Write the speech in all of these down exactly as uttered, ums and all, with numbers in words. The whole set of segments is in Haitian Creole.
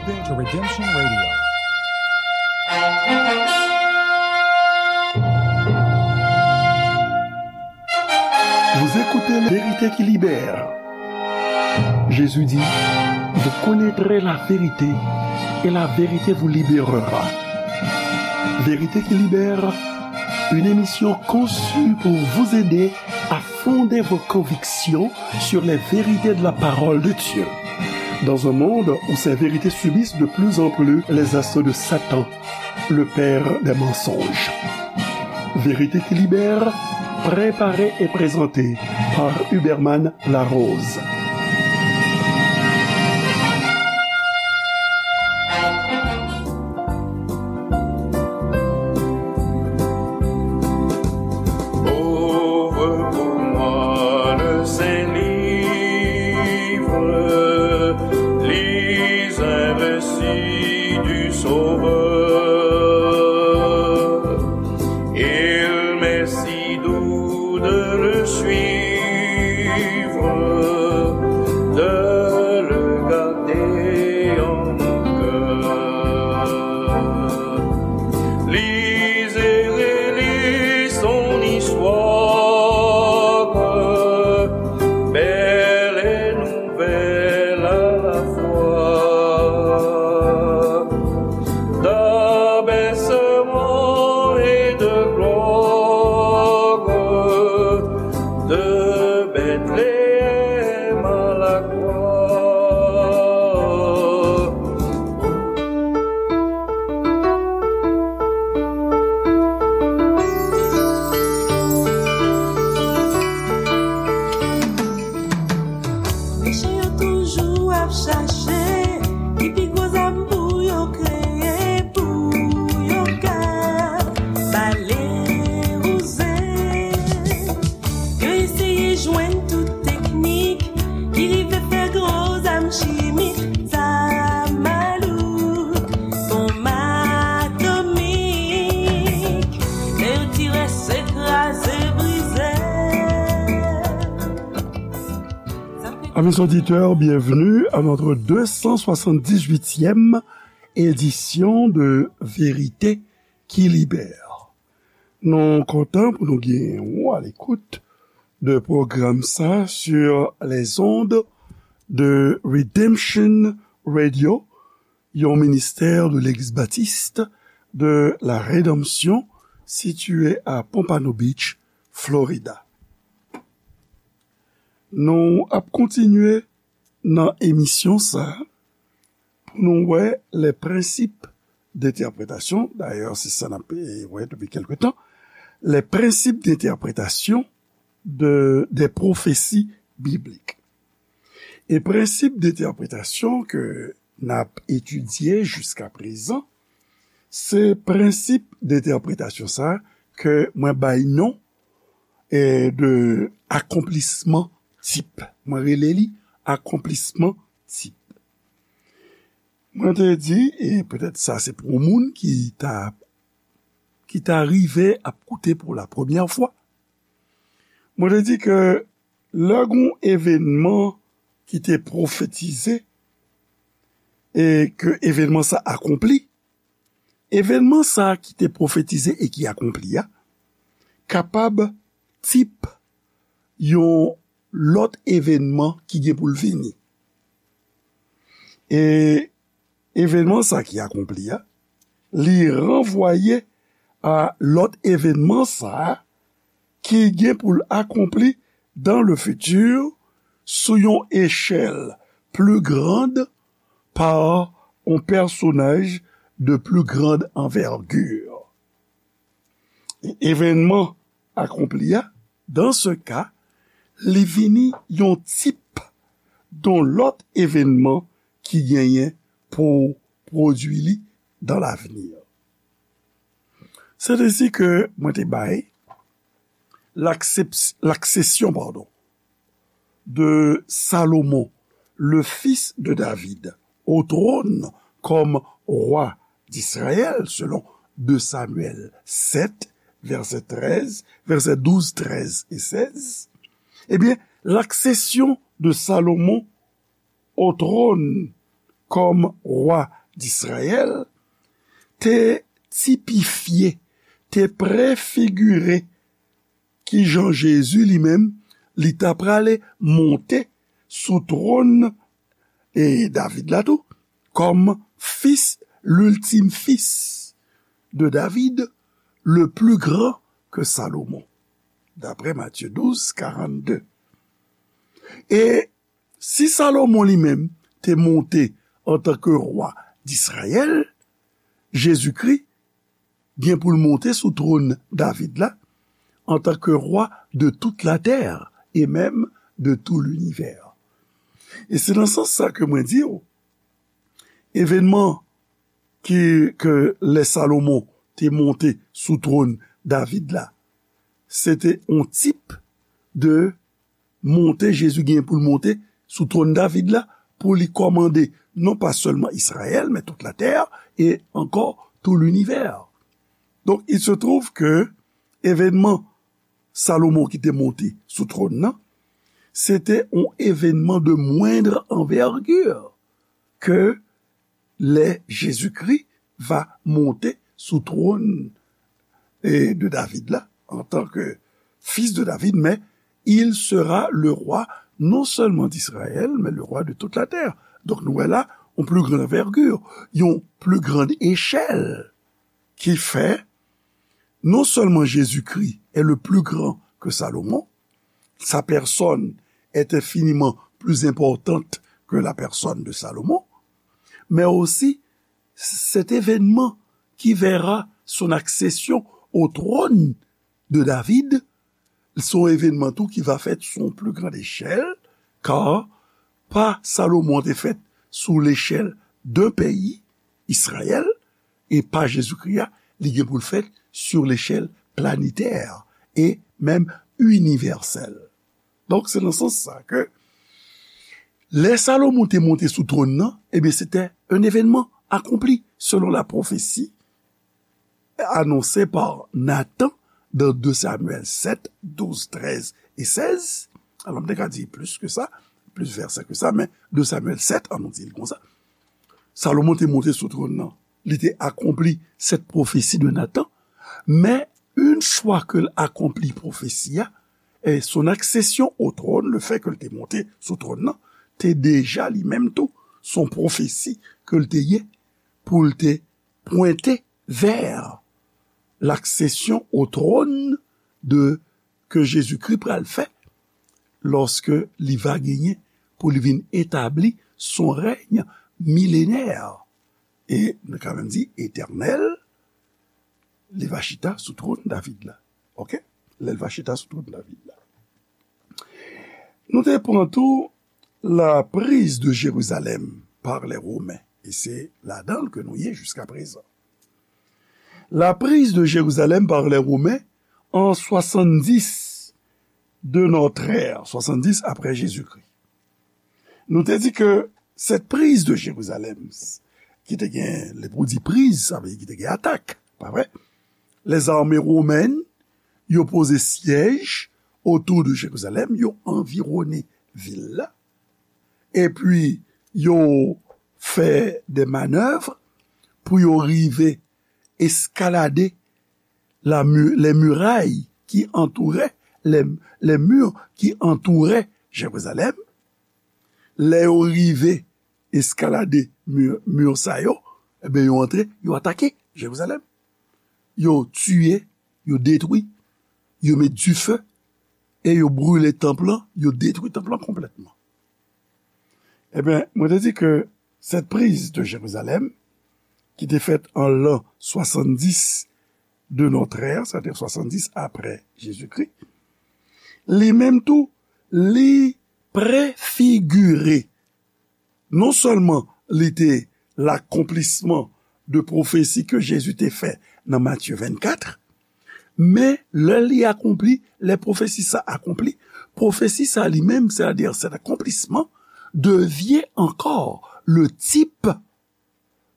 listening to Redemption Radio. Vous écoutez Vérité qui libère. Jésus dit, vous connaîtrez la vérité et la vérité vous libérera. Vérité qui libère, une émission conçue pour vous aider à fonder vos convictions sur les vérités de la parole de Dieu. Dans un monde où ces vérités subissent de plus en plus les assauts de Satan, le père des mensonges. Vérité qui libère, préparée et présentée par Huberman Larose. Ouvre pour moi le saint livre, lis un récit du Sauveur. Il m'est si doux de le suivre, de le garder en mon cœur. Lisez, relisez son histoire, belle et nouvelle à la fois, d'abaissement et de gloire, de Bethléem à la croix. Mechan yo toujou ap chache ki pi gwo zam pou yo kreye, pou yo ka bale wouze. Yo eseye jwenn tout teknik ki rive fè gwo zam chimik, zam malouk, bonm atomik. Lè yo tire, se kraze, brize. Amis auditeurs, bienvenue à notre deux cent soixante-dix-huitième édition de Vérité qui libère. Nou kontan pou nou gen ou à l'écoute de pwogram sa sur les ondes de Redemption Radio, yon ministè de Legliz Batis de la Redanmsyon sitiye a Pompano Beach, Florida. Nou ap kontinye nan emisyon sa pou nou wè les principes d'interprétation. Dayè, se sa n ap, eh, wè depi kèlke tan. Les principes d'interprétation de, des prophéties bibliques. E prensip de entèpretasyon ke n ap etidye jiska prezan, se prensip de entèpretasyon sa ke mwen bay non, eh, de akonplisman tip. Mwen rele li akonplisman tip. Mwen te di, e petèt sa se pou yon moun ki ta, ki ta rive ap koute pou la premyè fwa, mwen te di ke lè gon evènman ki te pwofetize e ke evènman sa akonpli, evènman sa ki te pwofetize e ki akonpli a kapab tip yon lòt evènman ki gen pou l vini. E evènman sa ki akonpli a, li ranvwaye a lòt evènman sa a ki gen pou l akonpli dans le futur sou yon echèl pli grand par yon pèsonaj de plus grande envergure. E evènman akonpli a, dans ce cas, li vini yon tip yon lòt evènman ki genyen pou pwodui li dans l'avenir. Se te si ke mwen te bay l'accep-, l'accession, pardon, de Salomon, le fils de David, au trône comme roi d'Israël, selon deux Samuel sept, verset treize, verset douze, treize et seize, eh bien, l'accession de Salomon au trône kòm wa d Izrayèl, te tipifye, te prefigire kijan Jezi li menm, li ta prale monte sou twòn e David la tou, kòm fis, l'ultime fils de David, le plus grand que Salomon, daprè Matye douz, karannde. E si Salomon li menm te monte antanke wa d Izrayèl, Jezikri gen pou l monte sou twòn David la, antanke wa de toute la terre et même de tout l'univers. E se nan sans sa ke mwen di w, evènman ki, ke lè Salomon te monte sou twòn David la, se te yon tip de monte Jezi gen pou l monte sou twòn David la, pou li kòmande non pa sèlman Izrayèl, men tout la terre et encore tout l'univers. Donc, il se trouve que evènman Salomon ki te monte sou twòn nan, se te yon evènman de moindre envergure ke lè Jezikri va monte sou twòn e, de David la, antanke fis de David, mais il sera le roi non seulement d'Israël, mais le roi de toute la terre. Donk, nou wè la, yon plus grande envergure, yon plus grande échelle, ki fè non seulement Jésus-Christ est le plus grand que Salomon, sa personne est infiniment plus importante que la personne de Salomon, mais aussi cet événement qui verra son accession au trône de David, se yon evènman tou ki va fèt sou yon pli grand echèl, ka pa Salomon te fèt sou lechèl d'un peyi, Izrayèl, e pa Jezikri a, li gen pou l fèt sur l'échelle planétaire et même universelle. Donk, se nan sans sa ke lè Salomon te monte sou twòn nan, ebyen, se te un événement accompli selon la prophétie annoncée par Nathan dans deux Samuel sept, douze, treize et seize. Alò, m te ka di plis ke sa, plis vèsè ke sa, men deux Samuel sept, an nou di l konsa. Salomon te monte sou twòn nan. Li te akonpli cette prophétie de Nathan. Men, yon fwa ke l akonpli pwofesi a, e son accession au trône, le fait ke l te monte sou twòn nan, te deja li menm tou, se yon pwofesi ke l te ye pou l te pwente vè l'accession au trône de, ke Jezikri pral fè lòske li va genyen pou li vin etabli son règne millénaire. E nou ka menm di etènèl, li va chita sou twòn David la. Oke? Lè l va chita sou twòn David la. Nou te pran tou la prise de Jérusalem par les Romains. E se ladan l ke nou ye jiska prezan. La prise de Jérusalem par les Romains en soixante-dix de notre ère, soixante-dix après Jésus-Christ. Nou te di ke cette prise de Jérusalem, ki te gen, lè pou di priz, sa vle di ki te gen atak, pa vre? Les armées romaines, yo poze syèj otou de Jérusalem, yo anviwone vil la, epi yo fè de manèv pou yo rive eskalade la mu-, les murailles qui entouraient, les, les murs qui entouraient Jérusalem. Lè yo rive eskalade mi, mi sa yo, ebyen, yo antre, yo atake Jerizalèm. Yo tiye, yo detwi, yo met dife, e yo brile tanp lan, yo detwi tanp lan konplètman. Ebyen, mwen te di ke cette prise de Jérusalem, ki te fèt an lan swasanndis de notre ère, sètadi swasanndis apre Jezikri, li menm tou, li prefigire. Non sèlman li te lakonplisman de pwofesi ke Jezi te fè nan Matye vennkat, men lè li akonpli, lè pwofesi sa akonpli, pwofesi sa li menm, c'est-à-dire cet accomplissement, devient encore le type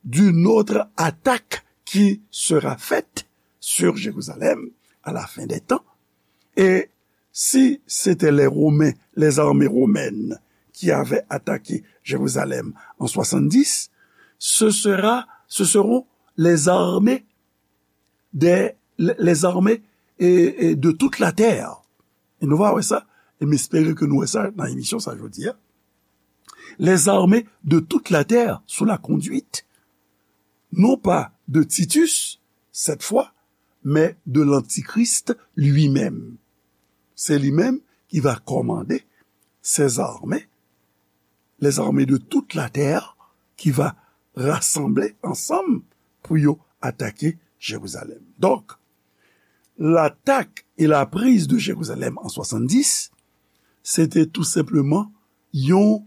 d'une autre attaque qui sera faite sur Jérusalem à la fin des temps. Et si c'était les Romains, les armées romaines qui avaient attaqué Jérusalem en soixante-dix, ce sera, ce seront les armées des, les armées et, et de toute la terre. E nou va wè sa, e m espere ke nou wè sa nan emisyon sa jodi a. Les armées de toute la terre sous la conduite, non pas de Titus, cette fois, mais de l'Antichrist lui-même. C'est lui-même qui va commander ces armées, les armées de toute la terre, qui va rassembler ensemble pour yo attaquer Jérusalem. Donc, l'attaque et la prise de Jérusalem en soixante-dix, c'était tout simplement yon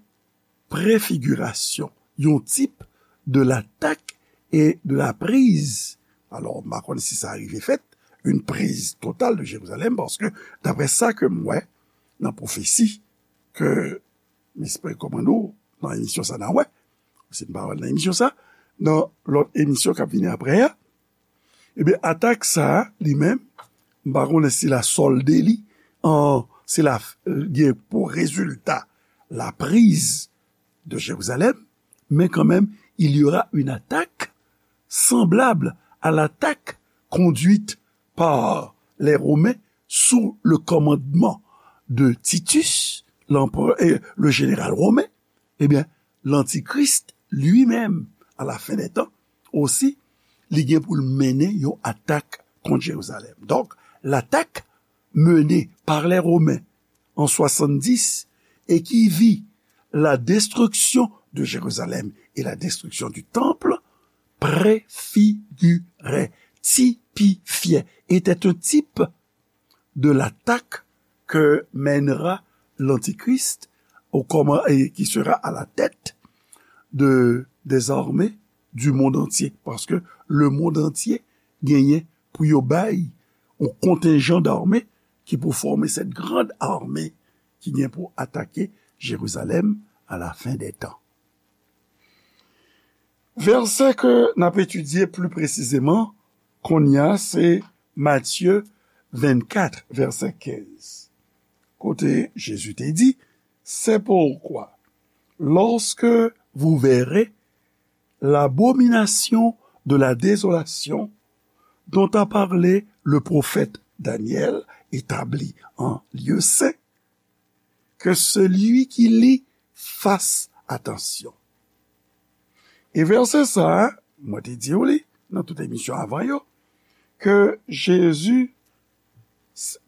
prefigirasyon, yon tip de l'attaque et de la prise. Alò, m pa konn si sa rive fèt, une prise totale de Jérusalem, paske, daprè sa ke m wè nan pwofesi ke m espere kòmann ou nan emisyon sa n a wè, si n pa wè l nan emisyon sa, nan lòt emisyon k ap vini apre a, ebyen, atak sa a, li menm, m pa konnen si l a sòlde li an, si l a gen pou rezilta la prise de Jérusalem, mais quand même, il y aura une attaque semblable à l'attaque conduite par les Romains sous le commandement de Titus, l'empereur, et le général romain, eh bien, l'Antichrist lui-même, à la fin des temps, aussi, li gen pou l mennen yon atak kont Jerizalèm. Donc, l'attaque menée par les Romains en soixante-dix et qui vit la destruction de Jérusalem et la destruction du temple préfigurait, typifiait, était un type de l'attaque que mènera l'Antichrist au comma-, et qui sera à la tête de, des armées du monde entier. Paske le monde entier genyen pou yo bay yon kontenjan dame ki pou fòme cette grande armée ki gen pou atake Jerizalèm à la fin des temps. Vèsè ke n ap etidye pli presizeman kounye a se Matye vennkat, vèsè kenz, kote Jezi te di, c'est pourquoi, lorsque vous verrez l'abomination de la désolation dont a parlé le prophète Daniel établie en lieu saint, que celui qui lit fasse attention. E vèsè sa a, mwen te di w li nan tout emisyon avan yo, ke Jezi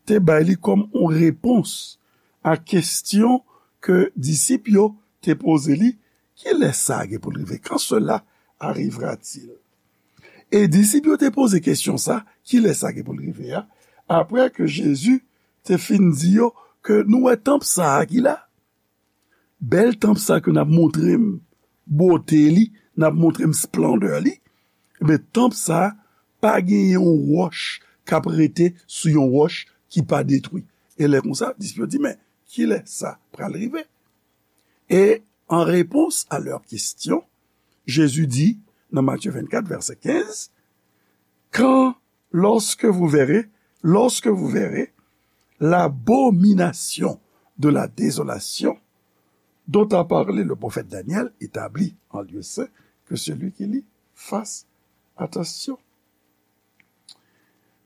te bay li kòm yon repons a kesyon ke disip yo te poze li, kilè sa gen pou l rive? Quand cela arrivera-t-il? E disip yo te poze kesyon sa, kilè sa gen pou l rive a, apre ke Jezi te fin di yo ke nou wè tanp sa a ki la, bèl tanp sa ke n ap montre m bote li, n ap montre m esplandè li, ebyen, tanp sa a pa gen yon wòch k ap rete sou yon wòch ki pa detwi. E lè konsa, disip yo di, men, kilè sa pral rive? E an repons a lè kesyon, Jezi di, nan Matye vennkat, vèsè kenz, quand, lorsque vous verrez, lorsque vous verrez l'abomination de la désolation dont a parlé le prophète Daniel établie en lieu saint, que celui qui lit fasse attention.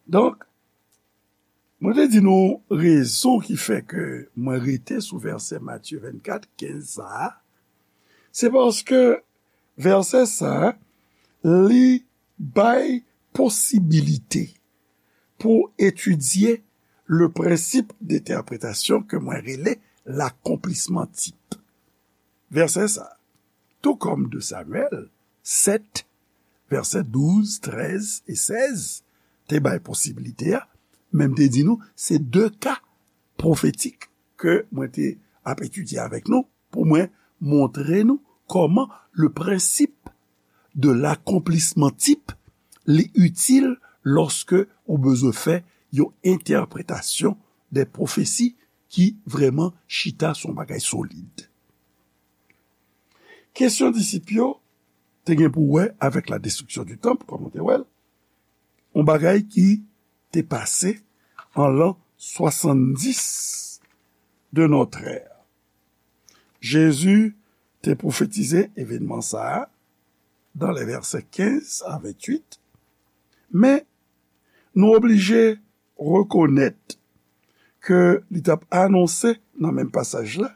Donk, mwen te di nou rezon ki fè ke mwen rete sou vèsè Matye vennkat, kenz sa a, se paske vèsè sa a, li bay posibilite pou etidye le principe d'interprétation ke mwen rele l'accomplissement type. Vèsè sa a, tout comme deux Samuel sept, vèsè douz, trèz e sèz, te bay posibilite a, men m te di nou, se de ka pwofetik ke mwen te ap etidye avèk nou, pou mwen montre nou kòman le principe de l'accomplissement type li itil lòske ou bezwen fè yon entèpretasyon de pwofesi ki vrèman chita sou yon bagay solid. Kesyon disip yo te gen pou wè avèk la destruction du temple, kòm nou te wè l, yon bagay ki te pase an lan swasanndis de notre ère. Jezi te pwofetize evènman sa a dans les versets quinze à vingt-huit, men nou oblije rekonèt ke li t ap anonse nan menm pasaj la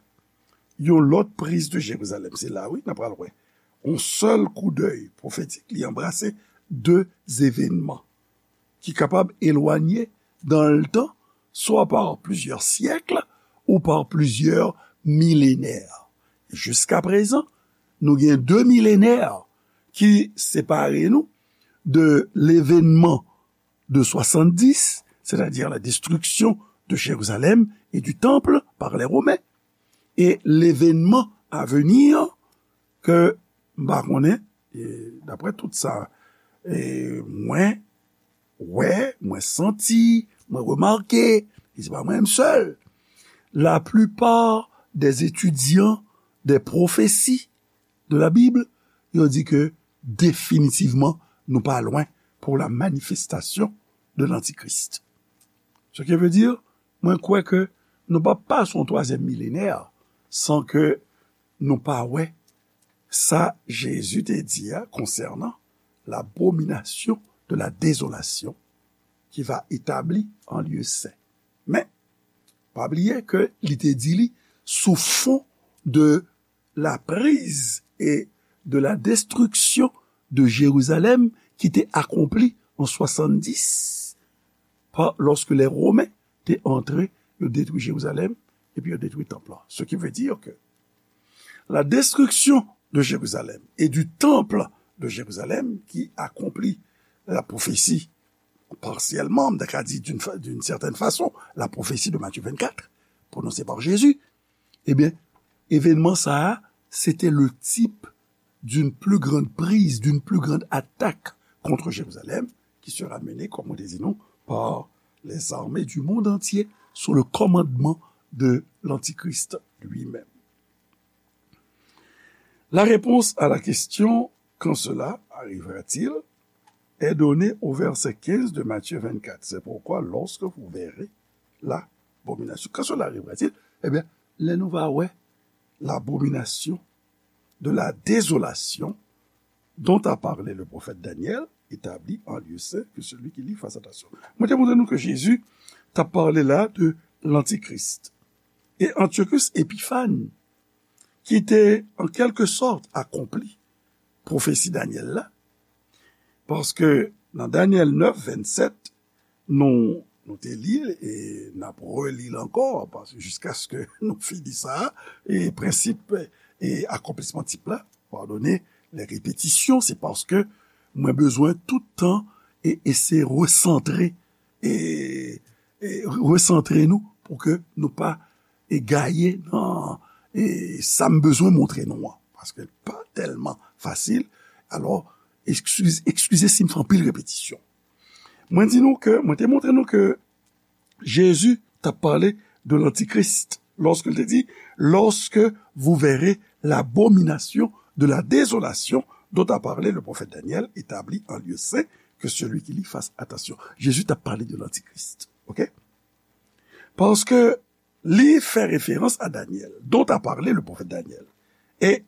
yon lòt priz de Jerizalèm. Se la, wi, n ap pral wè. Yon sèl koudèy pwofetik, li anbrase de evènman ki kapab elwanye dans le temps, soit par plusieurs siècles ou par plusieurs millénaires. Jiska prezan, nou gen de millénaires ki separe nou de l'événement de soixante-dix, c'est-à-dire la destruction de Jérusalem et du temple par les Romains, et l'événement à venir ke m pa konnen, e, daprè tout sa, e, mwen wè, mwen santi, mwen remake, e se pa mwen menm sèl. La plupart des étudiants des prophéties de la Bible, yo di ke definitivman nou pa lwen pour la manifestation de l'Antichrist. Ce qui veut dire, mwen kwè ke nou p ap pase yon twazyèm milenè san ke nou pa wè sa Jezi te di a konsènan l'abomination de la désolation qui va établir un lieu saint. Men, pa bliye ke li te di li sou fon de la prise et de la destruction de Jérusalem qui était accomplie en soixante-dix, pa, lorsque les Romains te antre, yo detwi Jerizalèm, epi yo detwi tanp lan. Ce qui veut dire que la destruction de Jérusalem et du temple de Jérusalem qui accomplit la prophétie partiellement, m ta ka di d'une fa-, d'une certaine façon, la prophétie de Matthieu vingt-quatre, prononcée par Jésus, ebyen, evènman sa a, se te le type d'une plus grande prise, d'une plus grande attaque contre Jérusalem, qui sera menée, comme on dit nous, par les armées du monde entier sous le commandement de l'Antichrist lui-même. La réponse à la question, quand cela arrivera-t-il, est donnée au verset quinze de Matthieu vingt-quatre. C'est pourquoi, lorsque vous verrez l'abomination, quand cela arrivera-t-il, eh bien, lè nou va wè l'abomination de la désolation dont a parlé le prophète Daniel, établie en lieu saint, que celui qui lit fasse attention. Mwen te montre nou ke Jezi t ap pale la de l'Antichrist. E Antiochus Epiphan, ki te, an kèlke sòt, akonpli pwofesi Danyèl la, paske nan Danyèl nèf, vennsèt, nou, nou te li l e n ap reli l ankò, paske jiskaske nou fini sa, e prensip e akonplisman tip la, pardonne les répétitions, se paske mwen bezwen tout tan e eseye resantre, e, e resantre nou pou ke nou pa e gaye nan, e sa m bezwen montre nou an, paske l pa tèlman fasil. Alò, eskiz-, eskize si m fè anpil repetisyon. Mwen di nou ke, mwen te montre nou ke Jezi t ap pale de l'Antichrist lorsque il te dit, lorsque vous verrez l'abomination de la désolation dont a parlé le prophète Daniel, établie en lieu saint, que celui qui lit fasse attention. Jezi t ap pale de l'Antichrist. Ok? Paske li fè referans a Danyèl, dont a parlé le prophète Daniel. E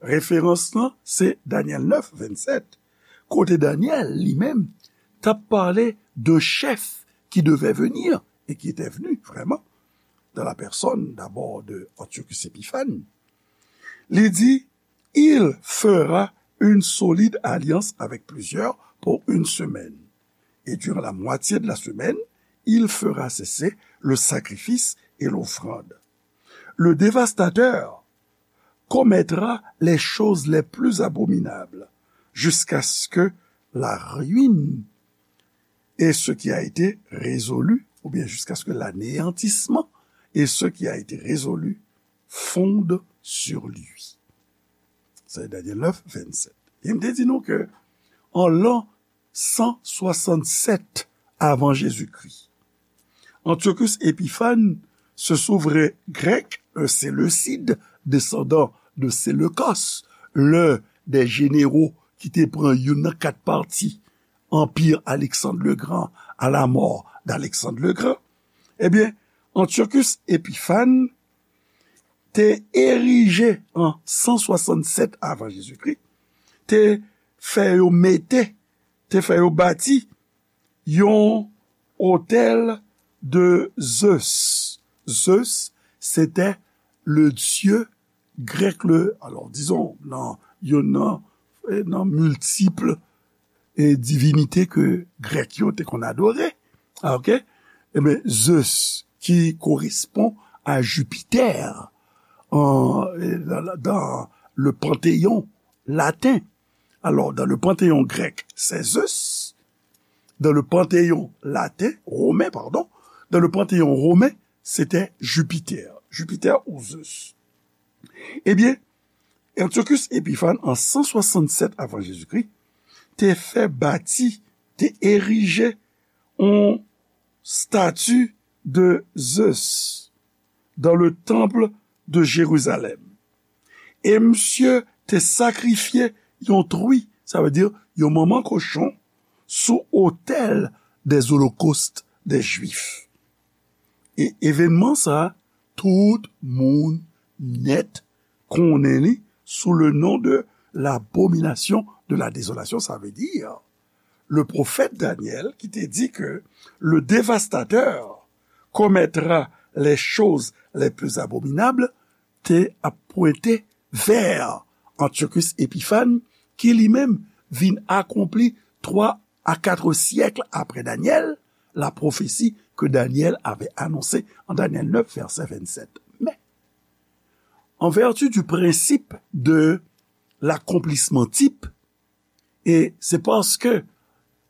referans lan, se Danyèl nèf, vennsèt, kote Danyèl, li menm, t ap pale de chèf ki devè vini e ki te vni vrèman, dans la personne d'abord de Antiochus Epiphan. Li di, il fera une solide alliance avec plusieurs pour une semaine. Et durant la moitié de la semaine, il fera cesser le sacrifice et l'offrande. Le dévastateur commettra les choses les plus abominables jusqu'à ce que la ruine et ce qui a été résolu, ou bien jusqu'à ce que l'anéantissement et ce qui a été résolu fondent sur lui. Se Danyèl nèf, vennsèt. E m te di nou ke an lan san swasannsèt avan Jezikri, Antiochus Epiphan, ce souverain grec, un séleucide, descendant de Séleucos, l'un des généraux ki te pran youn nan kat pati Anpi Alexandre le Grand, à la mort d'Alexandre le Grand, ebyen, Antiochus Epiphan te erije an san swasannsèt avan Jezikri, te fè yo mete, te fè yo bati yon otèl de Zeus. Zeus, c'était le dieu grec, le, alors, disons, nan, youn nan, eh, nan miltip, eh, divinite ke Grèk yo te konn adore. Ah, ok? Eben, Zeus, ki korespon a Jupiter, an, eh, dan, dan le panthéon latin. Alors, dans le panthéon grec, c'est Zeus. Dans le panthéon latin, romain, pardon, dans le panthéon romain, c'était Jupiter. Jupiter ou Zeus. Ebyen, Antiochus Epiphan, an san swasannsèt avan Jezikri, te fè bati, te erije yon stati de Zeus dans le temple de Jérusalem. E misye te sakrifye yon tri, sa vle di yon manman kochon, sou otèl des holocaustes des Juifs. E evènman sa, tout moun nèt konnen li sou le nom de l'abomination de la désolation, sa vle di le prophète Daniel ki te di ke le dévastateur commettra les choses les plus abominables, te ap pwente vè Antiochus Epiphan, ki li menm vin akonpli twa a kat syèk apre Daniel, la prophétie que Daniel avait annoncée en Daniel neuf, verset vingt-sept. Mais, en vertu du principe de l'accomplissement type, e se paske,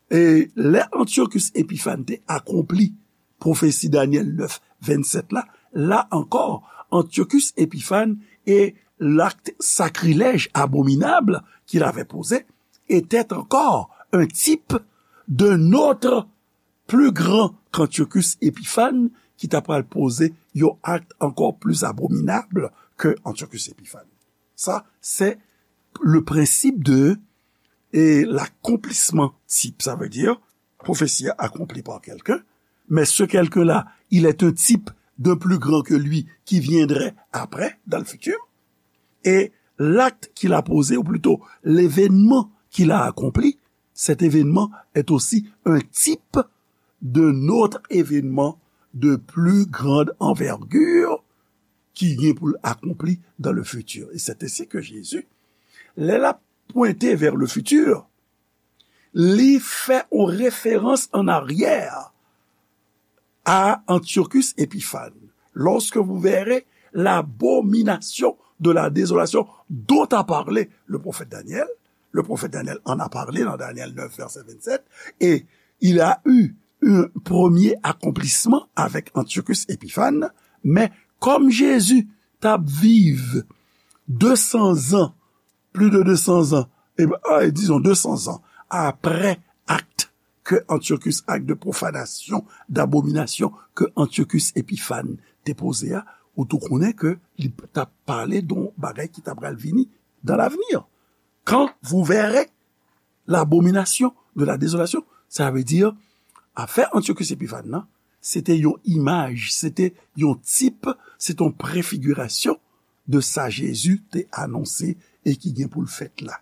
e lè Antiochus Epiphan te akonpli pwofesi Daniel neuf, vingt-sept la, la encore, Antiochus Épiphan et l'acte sacrilège abominable qu'il avait posé était encore un type d'un autre plus grand qu'Antiochus Épiphan, ki ta pral poze yon akt ankò pli abominab ke Antiochus Épiphan. Sa, se le prensip de, e, l'accomplissement type. Sa vle di, pwofesi a akonpli pa kelken, men se kelken la, il est un type d'un plus grand que lui qui viendrait après, dans le futur. Et l'acte qu'il a posé, ou plutôt l'événement qu'il a accompli, cet événement est aussi un type d'un autre événement de plus grande envergure ki gen pou l akonpli dans le futur. Et c'est ainsi que Jésus, lè l ap pwente vers le futur, li fè yon referans en arrière à Antiochus Épiphan. Lorsque vous verrez l'abomination de la désolation dont a parlé le prophète Daniel, le prophète Daniel en a parlé dans Daniel neuf, verset vingt-sept, et il a eu un premier accomplissement avec Antiochus Épiphan, men kòm Jezi t ap viv de san zan, plus de deux cents ans, e, a, disons deux cents ans, apre akt ke Antiochus, akt de profanasyon, dabominasyon ke Antiochus Épiphan te poze a, ou tou konnen ke li t ap pale de yon bagay ki ta pral vini dans l'avenir. Quand vous verrez l'abomination de la désolation, sa vle di, afè Antiochus Épiphan nan, se te yon imaj, se te yon tip, se te yon prefigirasyon de sa Jezi te anonse e ki gen pou l fèt la.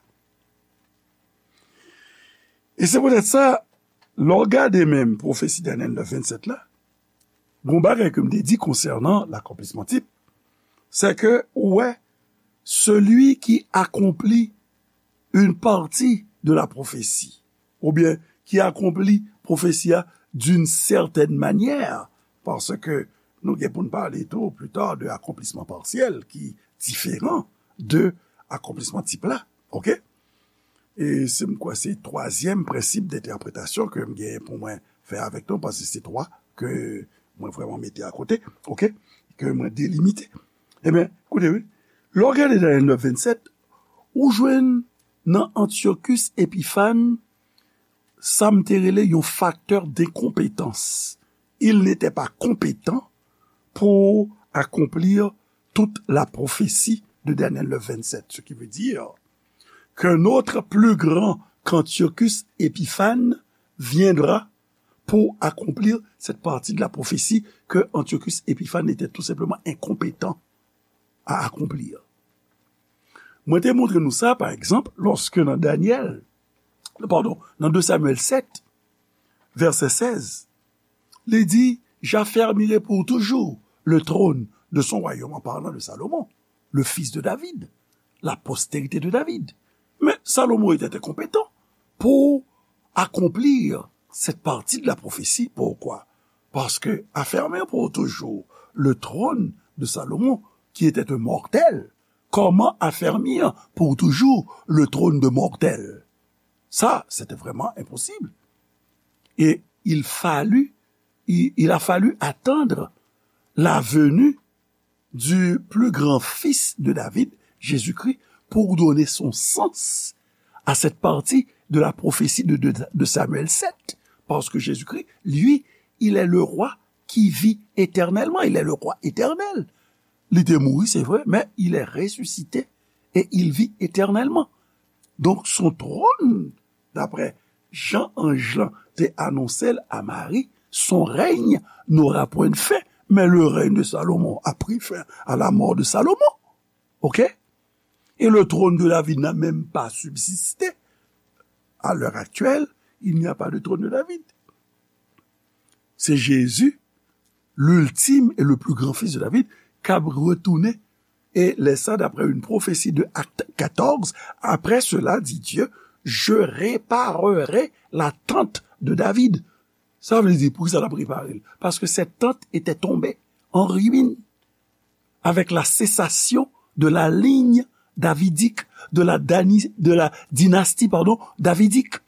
E se poutèt sa, lè w gade menm pwofesi Daniel neuf, vingt-sept la, gon bagay ke m te di konsènan l'accomplissement type, c'est que, ou wè, celui qui accomplit une partie de la prophétie, oubyen ki akonpli pwofesi a d'une certaine manière, paske nou gen pou n pale tou pli ta de akonplisman pasyèl ki diferan de akonplisman tip la, oke? E se, m kwè se twazyèm prensip dentèpretasyon ke m gen pou mwen fè avèk nou, paske se twa ke mwen vrèman mete akote, oke? Ke mwen delimite. Ebyen, koute wi, lè w gade Daniel neuf, vingt-sept, ou jwenn nan Antiochus Épiphan, sa m te rele yon facteur d'incompétence. Il n'était pas compétent pour accomplir toute la prophétie de Daniel neuf, vingt-sept, ce qui veut dire qu'un autre plus grand qu'Antiochus Épiphan viendra pour accomplir cette partie de la prophétie que Antiochus Épiphan était tout simplement incompétent à accomplir. Mwen te montre nou sa, pa egzanp, lòske nan Danyèl, padon, nan de Samyèl sèt, vèsè sèz, li di, j'affermirai pour toujours le trône de son royaume, en parlant de Salomon, le fils de David, la postérité de David. Mais Salomon était incompétent pour accomplir cette partie de la prophétie. Pourquoi? Parce que affermir pour toujours le trône de Salomon, qui était un mortel, comment affermir pour toujours le trône de mortel? Ça, c'était vraiment impossible. Et il fallut, il, il a fallu attendre la venue du plus grand fils de David, Jésus-Christ, pour donner son sens à cette partie de la prophétie de, de, de Samuel sept. Parce que Jésus-Christ, lui, il est le roi qui vit éternellement. Il est le roi éternel. Li te mouri, c'est vrai, mais il est ressuscité et il vit éternellement. Donc, son trône, d'après Jan anj lan te anonse l a Mari, son règne n'aura point de fin, mais le règne de Salomon a pris fin à la mort de Salomon. OK? Et le trône de David n'a même pas subsisté. À l'heure actuelle, il n'y a pas de trône de David. C'est Jésus, l'ultime et le plus grand fils de David, k ap retounen. Et lè sa, d'après une prophétie de Acte quatorze, après cela, dit Dieu, je réparerai la tente de David. Sa vle di, poukisa l ap repare l? Parce que cette tente était tombée en ruine avec la cessation de la ligne davidique, de la, dani- de la dynastie, pardon, davidique.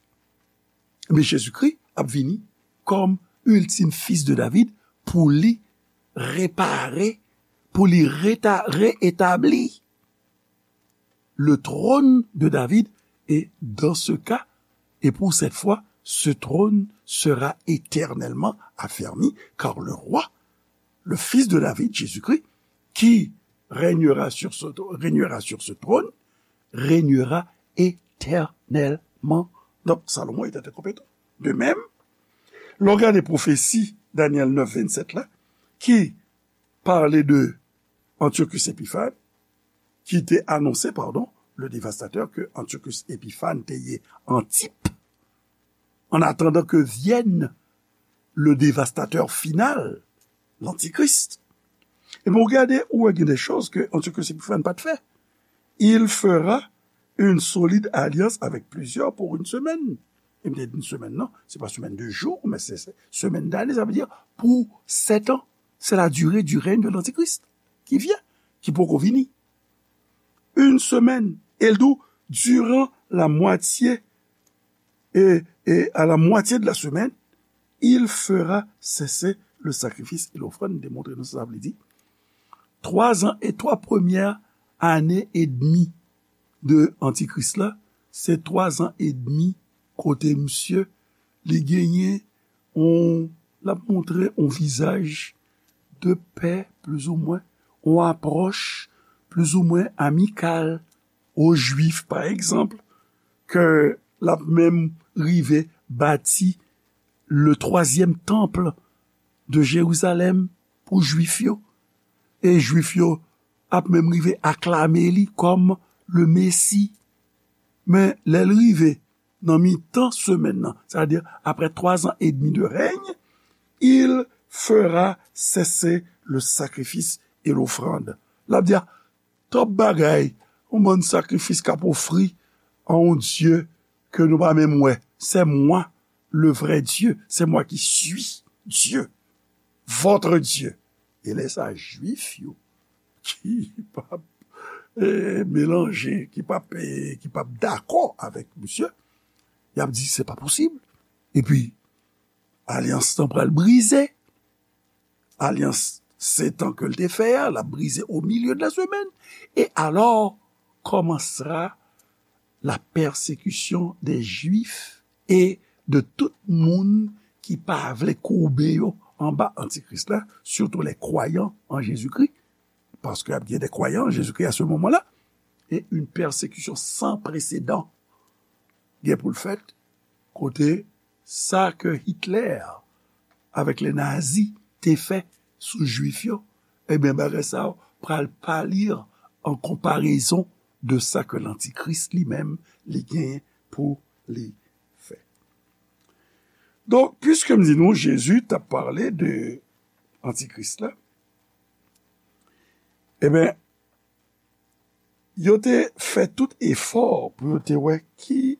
Men Jezikri ap vini kòm ultime fils de David pou li repare, pou li reta- reetabli le trône de David. Et dans ce cas, et pour cette fois, ce trône sera éternellement affermi, car le roi, le fils de David, Jésus-Christ, qui régnera sur ce, régnera sur ce trône, régnera éternellement. Donc, Salomon était incompétent. De même, lè w gade pwofesi Danyèl nèf vennsenk la, ki pale de Antiochus Epiphan, ki te anonse, pardon, le dévastateur que Antiochus Epiphan te ye en type, en attendant que vienne le dévastateur final, l'Antichrist. Epi w gade, ou wè gen de choz ke Antiochus Epiphan pa t fè. Il fera une solide alliance avec plusieurs pour une semaine. E m te di semèn nan, se pa semèn de jou, men se, se semèn dane, sa vle di pou sèt an. C'est la durée du règne de l'Antichrist qui vient, ki poko vini. Une semaine, e l di w, durant la moitié, et, et à la moitié de la semaine, il fera cesser le sacrifice et l'offrande. Demontre nou sa sa vle di. Twa zan e twa premyè ane edmi de Antikris la, se twa zan edmi kote misye, li genyen on, l ap montre on vizaj de pè, plizoumwen, on apwòch plizoumwen amikal o Jwif, pa egzanp, ke l ap menm rive bati le twazyèm tanp de Jerizalèm pou Jwif yo. E Jwif yo ap menm rive aklame li kòm le Mesi. Men lè l rive nan mitan semèn nan, c'est-à-dire après trois ans et demi de règne, il fera cesser le sacrifice et l'offrande. L ap di, a, twòp bagay, yon bann sakrifis k ap ofri a yon Dye ke nou pa menm wè. C'est moi, le vrai Dieu, c'est moi qui suis Dieu, votre Dieu. E lè sa, Jwif yo ki p ap, eh, melanje, ki p ap, eh, ki p ap dakò avèk misye, y ap di, se pa posib. Epi, alyans lan pral brize. Alyans sèt an ke l te fè a, l ap brize au milieu de la semaine. Et alors commencera la persécution des Juifs et de tout moun ki pa vle koube yo anba Antikris la, surtout les croyants en Jésus-Christ, parce qu'il y a des croyants en Jésus-Christ à ce moment-là, et une persécution sans précédent gen pou l fèt, kote sa ke Hitler avèk les nazis te fè sou Jwif yo, ebyen, bagay sa yo pral palir an konparezon de sa ke lantikris li menm li genyen pou li fè. Donk, piske m di nou, Jezi t ap pale de antikris la, ebyen, yo te fè tout efò pou yo te wè ki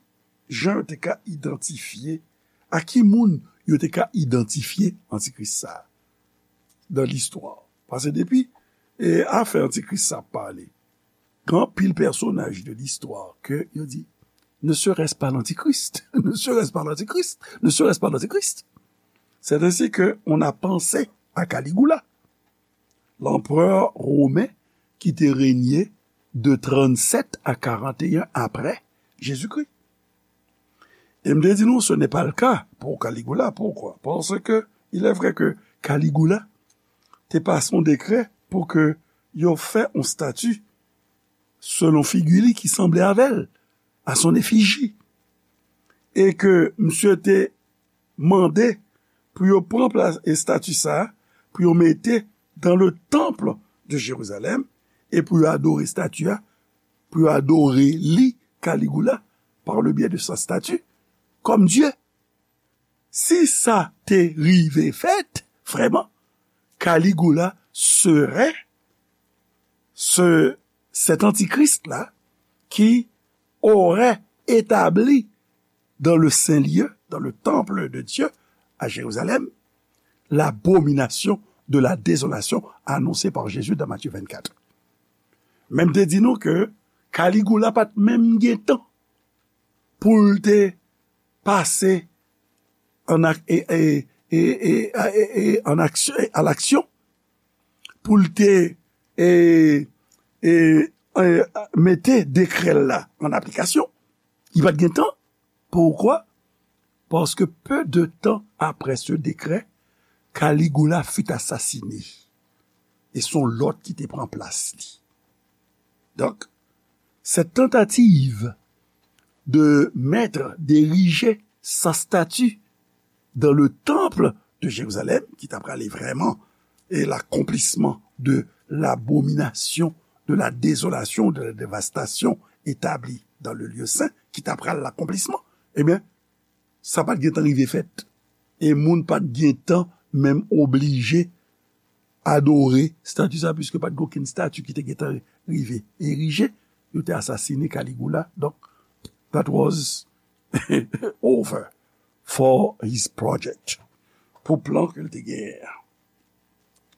jan yo te ka idantifye, a ki moun yo te ka idantifye antikris sa a nan listwa. Paske depi e, afè antikris sa ap pale, gen anpil pèsonaj de listwa ke yo di, ne serait-ce pas l'antichrist, ne serait-ce pas l'antichrist, ne serait-ce pas l'antichrist. C'est ainsi que on a pensé à Caligula, l'empereur romain qui te régnait de trente-sept à quarante et un après Jésus-Christ. E m te di nou, ce n'est pas le cas pour Caligula. Pourquoi? Parce que il est vrai que Caligula te pase yon dekrè pou ke yo fè yon estati selon figi li ki sanble avè l, à son effigie. E ke misye te mande pou yo pran plas estati sa a, pou yo mete dans le temple de Jérusalem, e pou yo adore estati a, pou yo adore li, Caligula, par le biais de sa statue, comme Dieu. Si sa te rive fèt, vrèman, Caligula serait ce, cet antichrist-là qui aurait établi dans le saint lieu, dans le temple de Dieu à Jérusalem, l'abomination de la désolation annoncée par Jésus dans Matthieu vingt-quatre. Men m te di nou ke Caligula pa t menm gen tan pou l te pase an ak, e, e, e, e, e, e, an aksyon, e, a laksyon, pou l te e, e, e, mete dekrè l la an aplikasyon. Li pa t gen tan. Pourquoi? Parce que peu de temps après ce décret, Caligula fut assassiné. E se yon lòt ki te pran plas li. Donc, cette tentative de mettre, d'ériger sa statue dans le temple de Jérusalem, ki ta prale vrèman e l'accomplissement de l'abomination, de la désolation, de la dévastation établie dans le lieu saint, ki ta pral l'accomplissement, ebyen, sa pa t gen tan rive fèt. E moun pa t gen tan menm oblije adore stati sa, piske pa t gen okenn stati ki te gen tan rive erije. Yo te asasine Caligula. Donk, that was over for his project. Pou plan ke l te genyen an.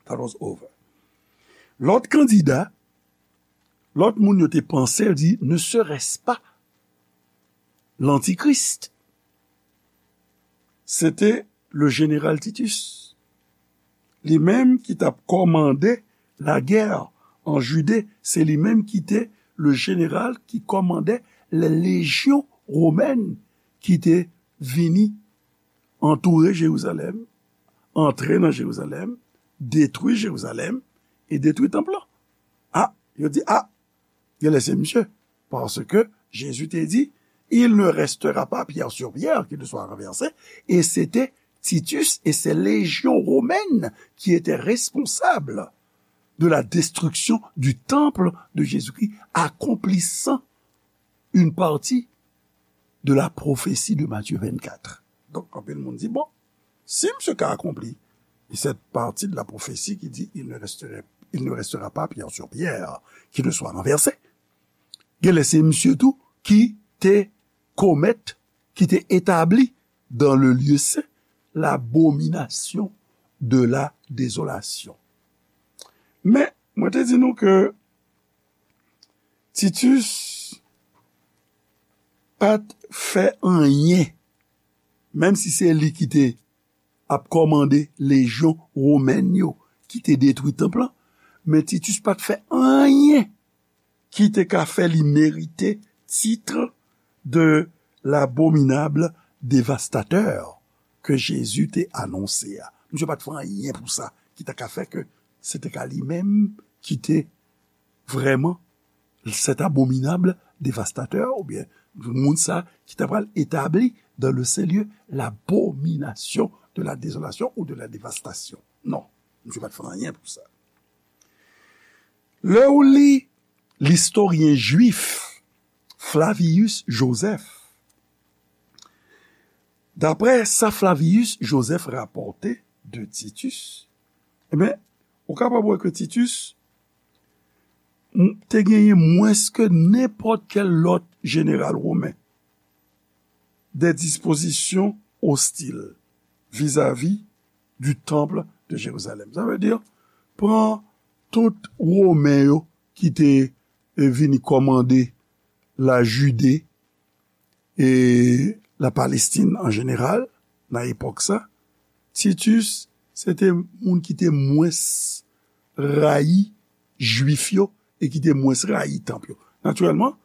That was over. Lòt kandida, lòt moun yo te panse, yo di, ne serait-ce pas l'antichrist? Se te le général Titus. Li menm ki t ap kòmande lagè an Jide, se li menm ki te le général qui commandait les légions romaines ki te vini antoure Jerizalèm, antre nan Jerizalèm, detwi Jerizalèm e detwi tanp lan. A, yo di, a, genlè se misye. Paske Jezi te di, il ne restera pas pierre sur pierre qui ne soit renversée. E se te Titus et ses légions romaines qui étaient responsables de la destruction du temple de Jésus-Christ, accomplissant une partie de la prophétie de Matthieu vingt-quatre. Donk, anpil moun di, bon, si misye ka akonpli cette partie de la prophétie qui dit, il ne resterait, il ne restera pas pierre sur pierre qui ne soit renversée. Genlè se misye tou ki te komèt, ki te etabli dans le lieu saint l'abomination de la désolation. Men, mwen te di nou ke Titus pa t fè anyen, menm si se li ki te ap kòmande lejyon womèn yo ki te detwi tanp lan, men Titus pa t fè anyen ki te ka fè li merite tit de l'abominable dévastateur ke Jezi te anonse a. Misye pa t fè anyen pou sa ki ta ka fè ke se te ka li menm ki te vrèman cet abominable dévastateur, oubyen moun sa ki ta pral etabli dans le saint lieu l'abomination de la désolation ou de la dévastation. Non, misye pa t fè anyen pou sa. Lè ou li Listoryen jwif Flavius Josèf, daprè sa Flavius Josèf rapòte de Titus, ebyen, ou kapab wè ke Titus m- te genyen mwens ke nenpòt kèl lòt jeneral women de dispozisyon ostil vizavi du temple de Jérusalem. Sa vle di, pran tout Women yo ki te eh, vini kòmande la Jide e la Palestin an jeneral, nan epòk sa, Titus se te moun ki te mwens rayi Jwif yo e ki te mwens rayi tanp yo. Natirèlman,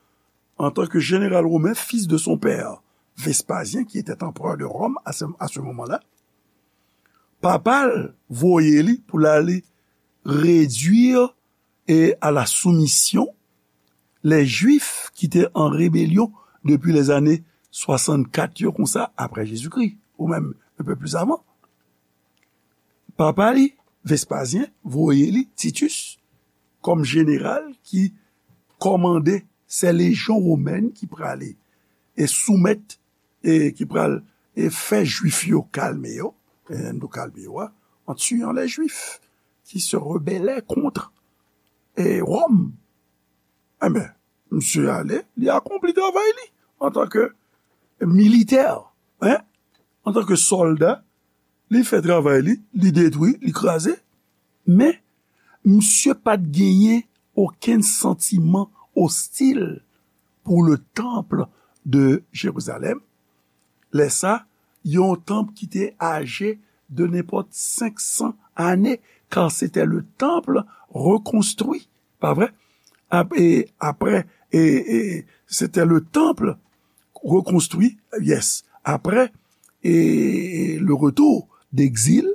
antanke jeneral women, fils de son père, Vespasien, qui était empereur de Rome à ce, à ce moment-là, papa l voye li pou l ale redwi e à la soumission les Juifs ki te an rebelyon depi lèzane swasannkat yo konsa apre Jezikri, ou menm un peu plus avant. Papa li, Vespasien, voye li, Titus, kòm jeneral ki kòmande se lejyon womèn ki prale e soumèt e ki pral e fè Jwif yo kalme yo, e nou kalme yo a, en tuant les Juifs qui se rebellaient contre e Rome. Enben, misye ale, li akonpli travay li antanke militè, en, antanke sòlda, li fè travay li, li detwi, li kraze, men misye pa t genyen okenn santiman ostil pour le temple de Jérusalem. Lè sa, yon tanp ki te aje de nenpòt senk san ane, car c'était le temple reconstruit, pa vre? Ap- e apre, e, e, c'était le temple reconstruit, yes, après et le retour d'exil,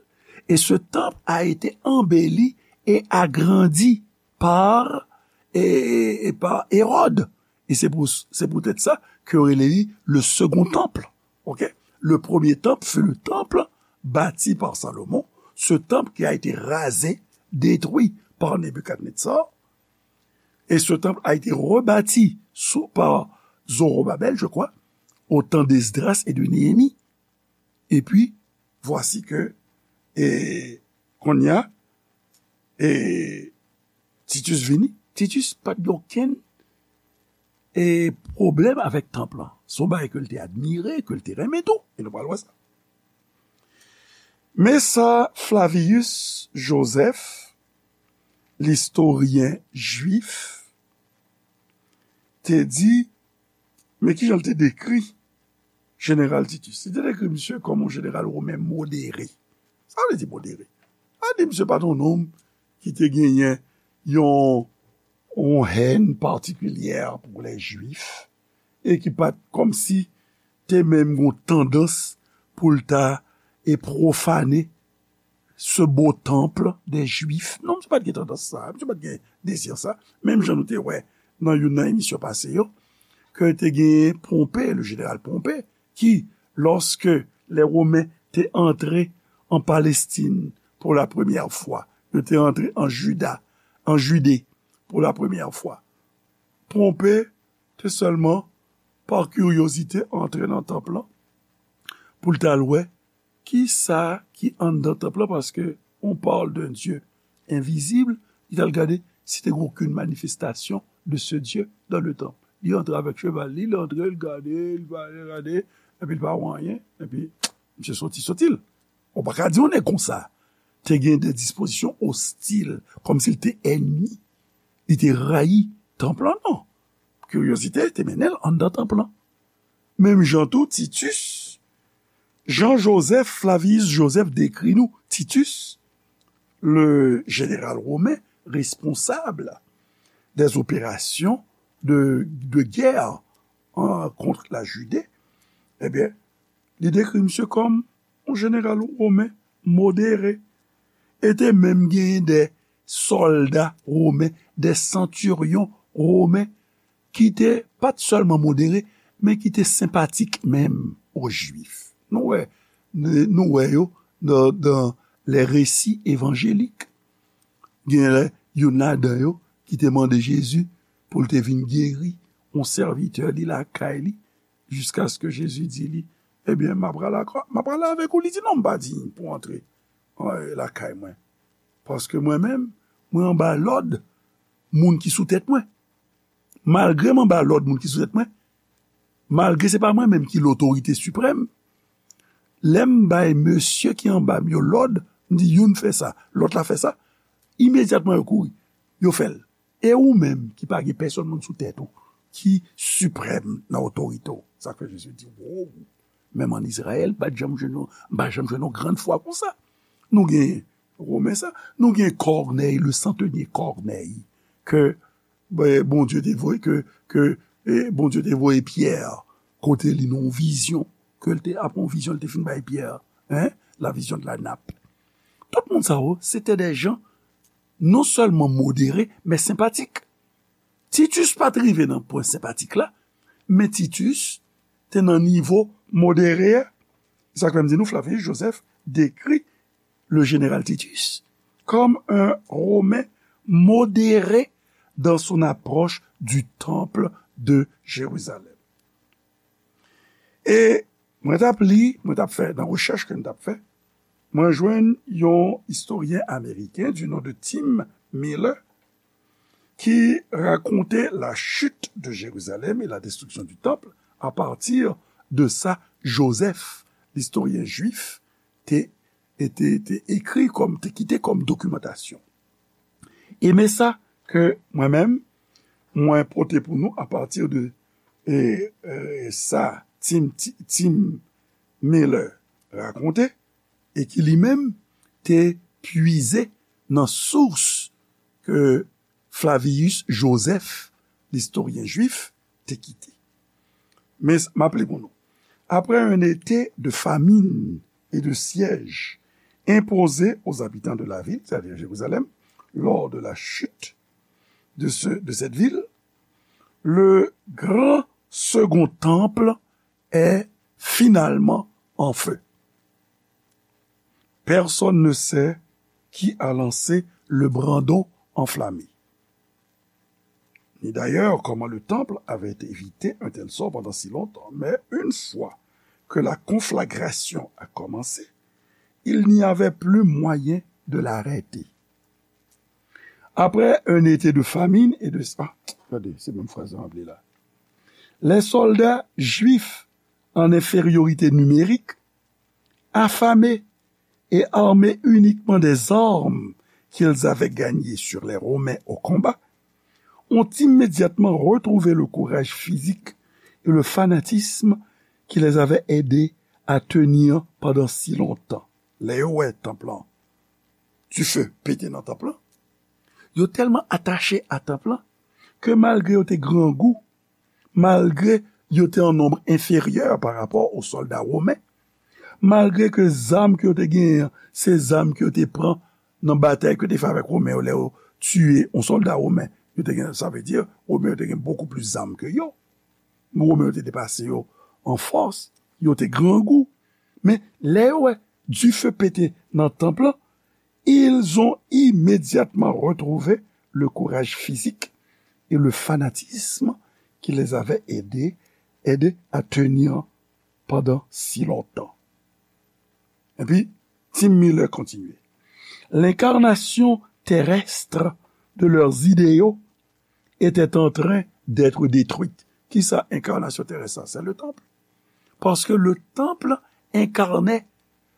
et ce temple a été embelli et agrandi par, et, et par Hérode. E se pou, se poutèt sa ke yo rele li le second temple. Ok? Le premier temple fut le temple bâti par Salomon, ce temple qui a été rasé, détruit par Nebuchadnezzar, et ce temple a été rebâti sous, par Zorobabel, je crois, au temps d'Esdras et de Néhémie. Et puis, voici que, e, kounye a, e, Titus vini. Titus pa t gen okenn e, pwoblèm avèk tanp lan. Se yon bagay ke l te admire, ke l te renmen tou. E nou pral wè sa. Men sa Flavius Josèf, listoryen jwif, te di, men ki jan l te dekri jeneral Titus? Li te dekri misye kòm yon jeneral women modere. Sa vle di modere? Sa vle di misye pa t yon nonm ki te genyen yon, yon hèn patikilyè pou lè Jwif e ki pa t kòmsi te menm gon tandans pou l ta e pwofane ce beau temple des Juifs. Non, misye pa t gen tandans sa, misye pa t gen dezi sa. Menm jan nou te wè nan youn nan emisyon pase yo, ke te gen Ponpe, le jeneral Ponpe, ki, lòske lè Women te antre an Palestin pou la premyè fwa, yo te antre an Jida, an Jide pou la premyè fwa. Ponpe te sèlman, pa kiryozite, antre nan tanp lan pou l t al wè ki sa ki anndan tanp lan, paske on parle d'un Dieu invisible, li t al gade si te gen okenn manifestasyon de ce Dieu dans le temple. Li antre avèk cheval li, li antre, li gade, li gade, gade, epi li pa wè anyen, epi misye soti, soti l. Ou pa ka di yon nèg konsa te gen de dispozisyon ostil, kòmsi l te ènmi, li te rayi tanp lan, non. Kiryozite te mennen l anndan tanp lan. Menm jan tou, Titus, Jean-Joseph Flavius Joseph dekri nou Titus, le jeneral women responsab des opérations de, de guerre, hein, contre la Judée, ebyen, li dekri misye kòm yon jeneral women modere, e te menm genyen de sòlda women, de santiryon women, ki te pa t sèlman modere, men ki te senpatik menm o Jwif. Nou wè, nou wè yo nan, nan les récits évangéliques. Gen lè, youn ladan yo ki te mande Jezi, pou l te vin geri yon sèvitè li lakay li, jiskaske Jezi di li, ebyen, m ap prale ak, m ap prale avèk ou. Li di, non, m pa diy pou antre, eh, lakay mwen. Paske mwen menm, mwen anba lòd moun ki sou tèt mwen. Malgre m anba lòd moun ki sou tèt mwen, malgre se pa mwen menm ki lotorite siprèm, lè m bay mesye ki anba m yo lòd, m di youn fè sa, lòt la fè sa, imedyatman yo kouri, yo fè l. E ou menm ki pa gen pèsonn moun sou tèt ou, ki siprèm nan otorite w. Sa k fè Jezi di, wow, menm ann Izrayèl, m pa t janm jwenn yon, m pa janm jwenn yon grann fwa konsa. Nou gen Women sa, nou gen Kònèy, le centenier Kònèy, ke, ben, Bondye te voye, ke, ke, eh, Bondye te voye Pyè kote li nan yon vizyon, ke l te, apre yon vizyon, l te fin bay Pyè, hein, la vision de la nappe. Tout moun sa yo, se te de jan non sèlman modere, men senpatik. Titus pa t rive nan pwen senpatik la, men Titus te nan nivo modere a. Sa k fè m di nou, Flavius Joseph dekri le général Titus comme un Romain modéré dans son approche du temple de Jérusalem. E mwen t ap li, mwen t ap fè, nan rechèch ke m t ap fè, mwen jwenn yon istoryen ameriken du nom de Tim Miller ki rakonte la chute de Jérusalem et la destruction du temple à partir de sa Joseph, l'historien juif, te, te, te ekri kòm, te kite kòm dokimantasyon. E men sa ke mwen menm, mwen pote pou nou apati de, e, e, sa Tim, Ti- Tim Miller rakonte, e ki li menm te pwize nan sous ke Flavius Joseph, l'historien juif, te kite. Men, m ap li pou nou. Après un été de famine et de siège imposé aux habitants de la ville, c'est-à-dire Jérusalem, lors de la chute de, ce, de cette ville, le grand second temple est finalement en feu. Personne ne sait qui a lancé le brandon enflammé, ni d'ailleurs comment le temple avait évité un tel sort pendant si longtemps. Mais une fois que la conflagration a commencé, il n'y avait plus moyen de l'arrêter. Après un été de famine et de... Ah, gade, se menm fraz la m ap li la. Les soldats juifs en infériorité numérique, affamés et armés uniquement des armes qu'ils avaient gagnées sur les Romains au combat, ont immédiatement retrouvé le courage physique et le fanatisme qui les avaient aidés à tenir pendant si longtemps. Lè yo wè tanp lan, dife pete nan tanp lan, yo tèlman atache a tanp lan ke malgre yo te grangou, malgre yo te an nonb enferyè pa rapò o sòlda women, malgre ke zam ke yo te genyen an, se zam ke yo te pran nan batay ke yo te fè avèk Women yo, lè yo tiye yon sòlda women, yo te gen, sa vle di, Women yo te gen bokou plis zam ke yo. Women yo te depase yo an fòs, yo te grangou. Men, lè yo wè dife pete nan tanp lan, ils ont immédiatement retrouvé le courage physique et le fanatisme qui les avait aidés, aidés à tenir pendant si longtemps. Epi, Tim Miller kontinye. L'incarnation terrestre de leurs idéaux était en train d'être détruite. Kisa enkarnasyon terès sa? C'est le temple. Parce que le temple incarnait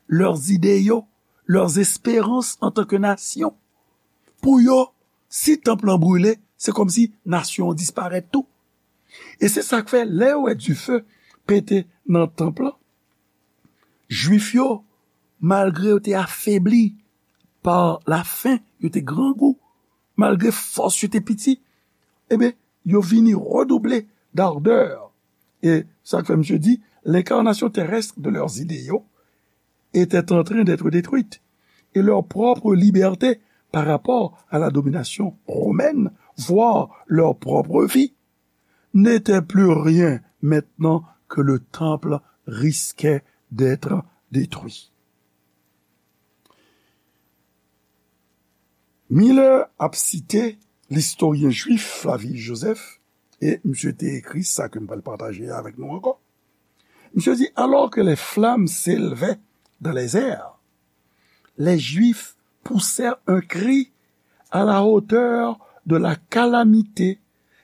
leurs idéaux, leurs espérances en tant que nation. Pou yo, si tanp lan brile, se kòmsi nasyon an disparèt tou. E se sa k fè, lè yo wè dife pete nan tanp lan, Jwif yo, malgre yo te afebli pa lafen, yo te grangou, malgre fòs yo te piti, ebyen, yo vini redouble d'ardeur. E sa k fè misye di, l'incarnation terrestre de leurs idéaux était en train d'être détruite, et leur propre liberté par rapport à la domination romaine, voire leur propre vie, n'était plus rien maintenant que le temple risquait d'être détruit. Miller ap site listoryen jwif Flavius Josèphe, e misye te ekri sa ke m pral pataje avèk nou ankò. Misye di, alors que les flammes s'élevaient dans les airs, les Juifs poussèrent un cri à la hauteur de la calamité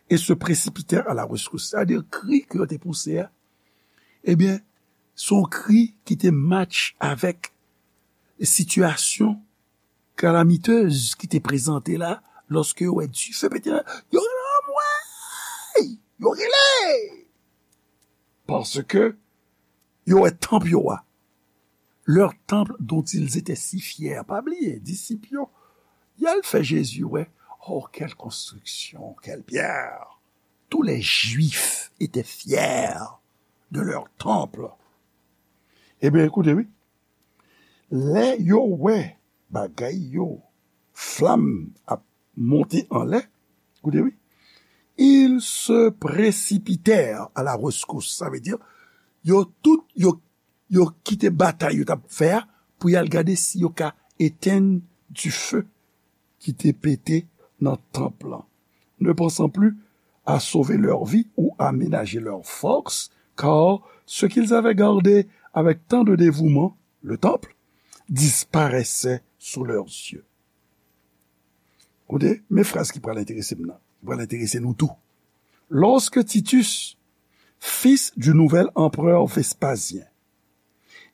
et se précipitèrent à la rescousse. Sa vle di kri ke yo te pouse a, ebyen, se yon kri ki te match avèk sitiyasyon kalamitez ki te prezante la, lòske yo wè dife pete la, yo rele anmwey! Yo rele! Paske yo wè tanp yo a. Leur temple dont ils étaient si fiers. Pa bliye, disip yo, y al fè Jezi wè. Oh, quelle construction, quelle pierre! Tous les Juifs étaient fiers de leur temple. Ebyen, ekoute, wi. Lè yo wè bagay yo, flanm ap monte anlè, koute wi, ils se précipitèrent à la rescousse. Sa vle di, yo tout, yo, yo kite batay yo t ap fè a pou y al gade si yo ka etenn dife ki te pete nan tanp lan, ne pensant plus à sauver leur vie ou à ménager leur force, car ce qu'ils avaient gardé avec tant de dévouement, le temple, disparaissait sous leurs yeux. Koute, men fraz ki pral enterese m nan, ki pral enterese nou tou. Lorsque Titus, fils du nouvel empereur Vespasien,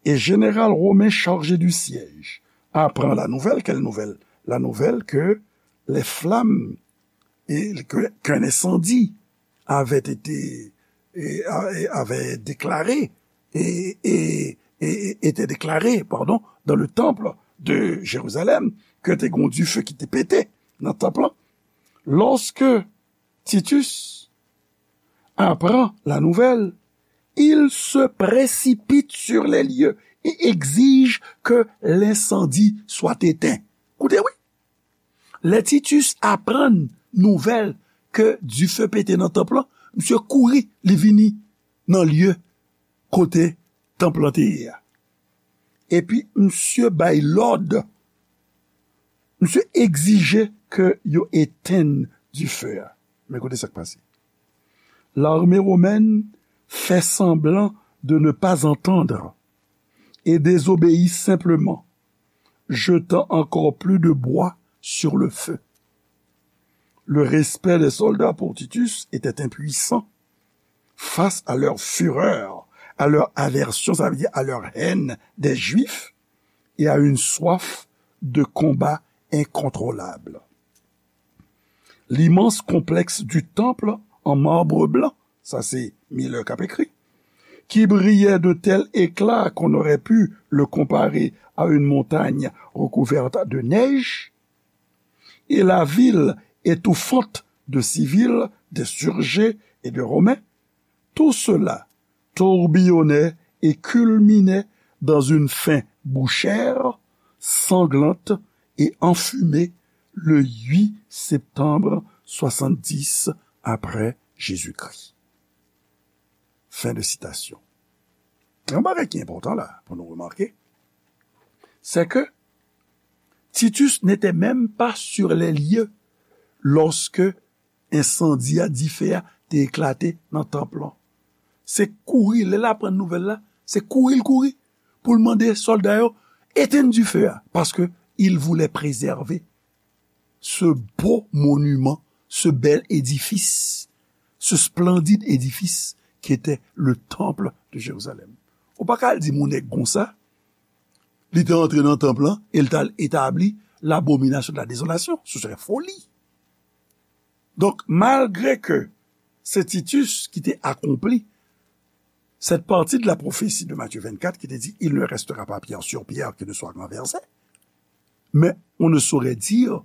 et général romain chargé du siège, apprend la nouvelle. Quelle nouvelle? La nouvelle que les flammes et que, qu'un incendie avait été, et, et avait déclaré, et, et, et était déclaré, pardon, dans le temple de Jérusalem, ke te gen yon dife ki te pete nan tanp lan. Lorsque Titus apprend la nouvelle, il se précipite sur les lieux et exige que l'incendie soit éteint. Koute, wi. Lè Titus aprann nouvèl ke dife pete nan tanp lan, misye kouri, li vini nan lye kote tanp lan te ye a. Epi misye bay lòd, misye egzije ke yo etenn dife a. Men koute sa k pase. L'armée romaine fait semblant de ne pas entendre et désobéit simplement, jetant encore plus de bois sur le feu. Le respect des soldats pour Titus était impuissant face à leur fureur, à leur aversion, ça veut dire à leur haine des Juifs, et à une soif de combat incontrôlable. L'immense complexe du temple en marbre blanc, sa se Miller k ap ekri, qui brillait d'un tel éclat qu'on aurait pu le comparer à une montagne recouverte de neige, et la ville étouffante de civils, d'insurgés et de Romains, tout cela tourbillonnait et culminait dans une fin bouchère, sanglante et enfumée le huit septembre soixante-dix après Jésus-Christ. Fin de citation. Yon bagay ki enpòtan la pou nou remake, c'est que Titus n'était même pas sur les lieux lorsque ensandi a, dife a, te eklate nan tanp lan. Se kouri, lè l aprann nouvèl la, se kouri l kouri pou l mande sòlda yo etenn dife a, paske il voulait préserver ce beau monument, ce bel édifice, ce splendide édifice qui était le temple de Jérusalem. Ou pa ka al di moun nèg konsa, li te antre nan tanp lan e l t al etabli l'abomination de la désolation. Ce serait folie. Donk, malgre ke se Titus ki te akonpli cette partie de la prophétie de Matthieu vingt-quatre qui te dit, il ne restera pas pierre sur pierre qui ne soit renversée, mais on ne saurait dire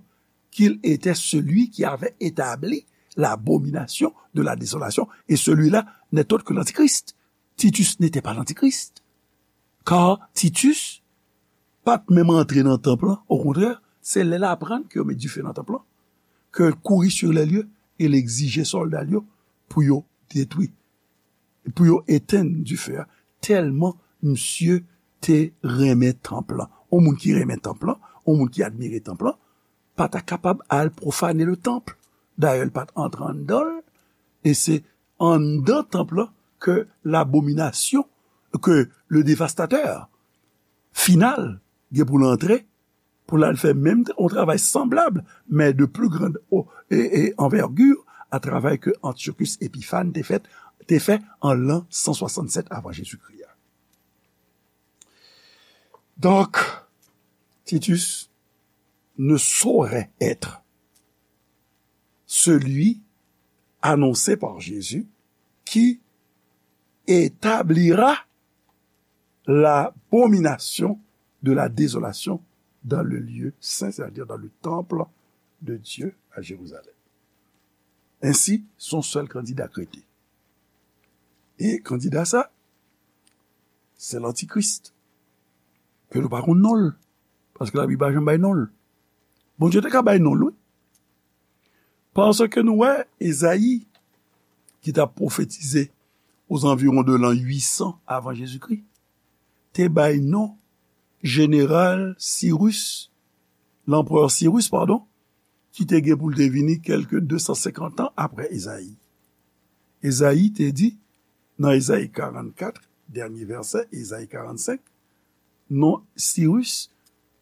qu'il était celui qui avait établi l'abomination de la désolation, et celui-là n'est autre que l'Antichrist. Titus n'était pas l'Antichrist. Kar Titus pa t menm antre nan tanp lan. Okontrè, se lè l aprann ke yo met dife nan tanp lan, ke l kouri sur les lieux e l egzije sòlda l yo pou yo detwi, pou yo etenn dife a. Tèlman misye te renmen tanp lan. Yon moun ki renmen tanp lan, yon moun ki admire tanp lan, pa ta kapab al pwofane le tanp. Dayè, l pa t antre anndan l, e se anndan tanp lan ke labominasyon, ke le devastatè final gen pou l antre, pou l al fè menm yon travay sanblab, men de pli grand o- e, e anvègi a travay ke Antyochus Epiphan te fè, te fè an lan san swasannsèt avan Jezikri a. Donc, Titus ne saurait être celui annoncé par Jésus qui établira l'abomination de la désolation dans le lieu saint, c'est-à-dire dans le temple de Dieu à Jérusalem. Ensi, se yon sèl kandida k rete. E kandida sa, se lantikris. Ke nou pa konn non l. Paske Labib pa janm bay non l. Bondye te ka bay non l, wi. Paske nou wè Ezayi, ki t ap pwofetize ozanviwon de lan uit san avan Jezikri, te bay non jeneral Sirus, lanperè Sirus, padon, ki te gen pou l te vini kèlke de san senkant an apre Ezayi. Ezayi te di, nan Ezayi karannkat, dènye vèsè, Ezayi karannsenk, non Sirus,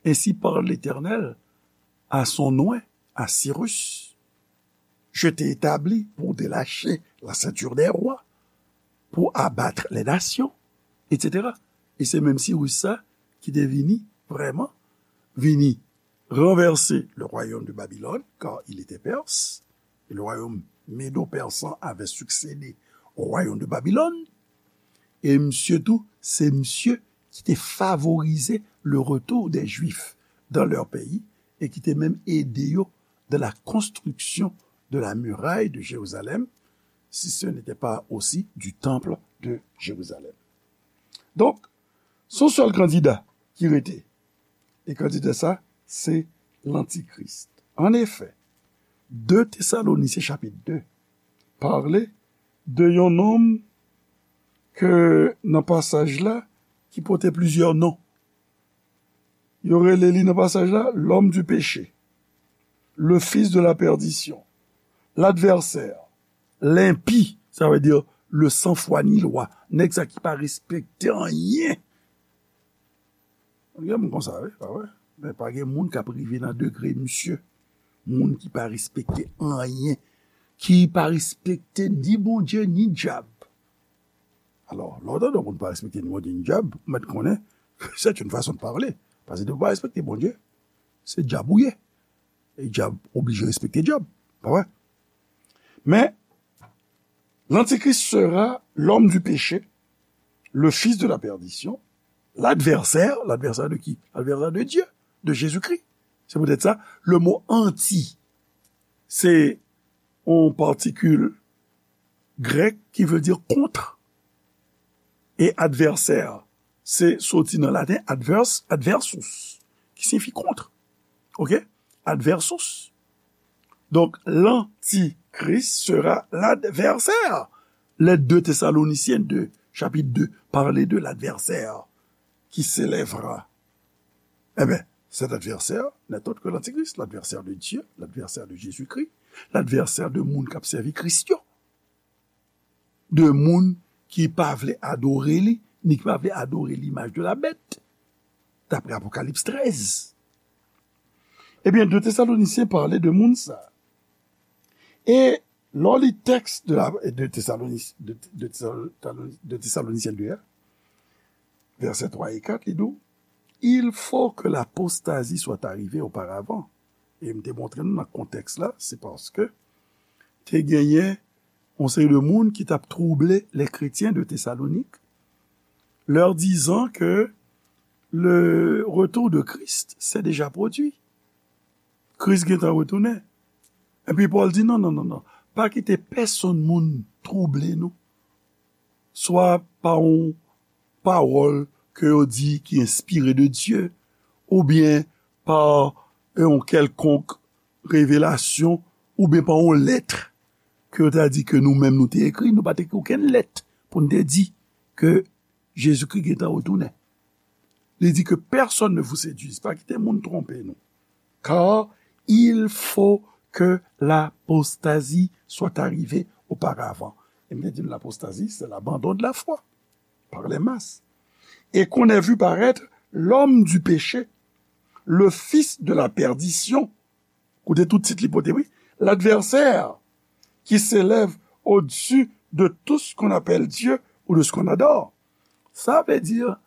ainsi parle l'Éternel à son oint, à Cyrus, je t'ai établi pour délacher la ceinture des rois, pour abattre les nations, et cetera. E se menm Sirus sa ki te vini, vrèman, vini renverser le royaume de Babylone, car il était perse, et le royaume médo-persan avait succédé au royaume de Babylone. E misye tou, se misye ki te favorize le retour des Juifs dans leur pays e ki te menm ede yo dans la construction de la muraille de Jérusalem, si ce n'était pas aussi du temple de Jérusalem. Donk, se yon sèl kandida ki rete. E kandida sa, se lantikris. An efè, de Tesalonisyen chapit de pale de yon nonm ke nan pasaj la ki pote plizyè non. Yo rele li nan pasaj la l'homme du péché, le fils de la perdition, l'adversaire, l'impie, sa vle di le sans foi ni loi, nèg sa ki pa respekte anyen. Gen moun konsa, wi, pa vre? Men pa gen moun k ap rive nan degre misye. Moun ki pa respekte anyen, ki pa respekte ni Bondye, ni dyab. Alò, lè w tande yon moun pa respekte ni Bondye, ni dyab, ou mèt konnen ke c'est une façon de parler. Paske depi w pa respekte Bondye, se dyab ou ye. E dyab oblije respekte dyab. Pa vre? Men, l'Antichrist sera l'homme du péché, le fils de la perdition, l'adversaire, l'adversaire de qui? L'adversaire de Dieu, de Jésus-Christ. Se poutèt sa, le mo anti, se yon patikil grèk ki vle di kont. E advèsè, se soti nan laten advers, adversus, ki siyifi kont. Oke? Adversus. Donk, l'Antichrist sera l'adversaire. Lettre de Thessaloniciens deux, chapitre deux, parle de l'adversaire qui s'élèvera. Eh bien, cet adversaire n'est autre que l'Antichrist, l'adversaire de Dieu, l'adversaire de Jésus-Christ, l'adversaire de moun k ap sèvi Kris yo. De moun ki pa vle adore li, ni ki pa vle adore l'image de la bête, d'après Apocalypse treize. Ebyen, de Tesalonisyen pale de moun sa. E lè w li tèks de la, de Tesalonis, de, de Tesalo-, de Tesalonisyen de a, vèsè twa e kat, li di w, il faut que l'apostasie soit arrivée auparavant. E m te montre nou nan kontèks la, se paske te genyen yon seri de moun ki t ap trouble les chrétiens de Thessalonique, leur disant que le retour de Christ s'est déjà produit. Kris gentan retounen. Epi Pòl di, non, non, non, non. Pa kite pèsonn moun trouble nou. Swa pa yon pawòl ke yo di ki enspire de Dye, oubyen pa yon kèlkonk revelasyon, oubyen pa yon lèt ke yo ta di ke nou menm nou te ekri, nou pa te ekri okenn lèt pou n te di ke Jezikri gentan retounen. Li di que personne ne vous séduise, pa kite moun twonpe nou. Car il faut que l'apostasie soit arrivée auparavant. E m te di nou l'apostasie, c'est l'abandon de la foi par les masses. Et qu'on ait vu paraître l'homme du péché, le fils de la perdition. Koute tout tit li pote, wi. L'adversaire qui s'élève au-dessus de tout ce qu'on appelle Dieu ou de ce qu'on adore. Ça veut dire,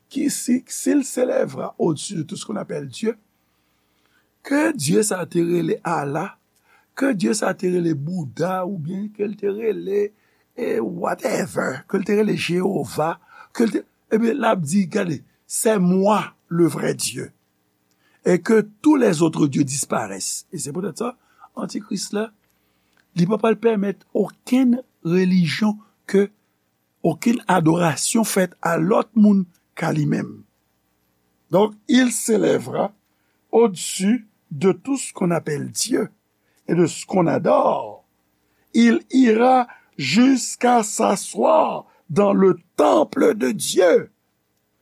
qui, si, s'il s'élèvera au-dessus de tout ce qu'on appelle Dieu, ke Dye sa te rele Allah, ke Dye sa te rele Bouda, oubyen ke l te rele, e, whatever, ke l te rele Jewova, ke l te, ebyen, l ap di, gade, c'est moi le vrai Dieu. Et que tous les autres dieux disparaissent. E se poutèt sa, Antikris la, li pa pral pèmèt okenn relijyon ke okenn adorasyon fèt a lòt moun ka li menm. Donc, il s'élèvera au-dessus de tout ce qu'on appelle Dieu et de ce qu'on adore. Il ira jusqu'à s'asseoir dans le temple de Dieu,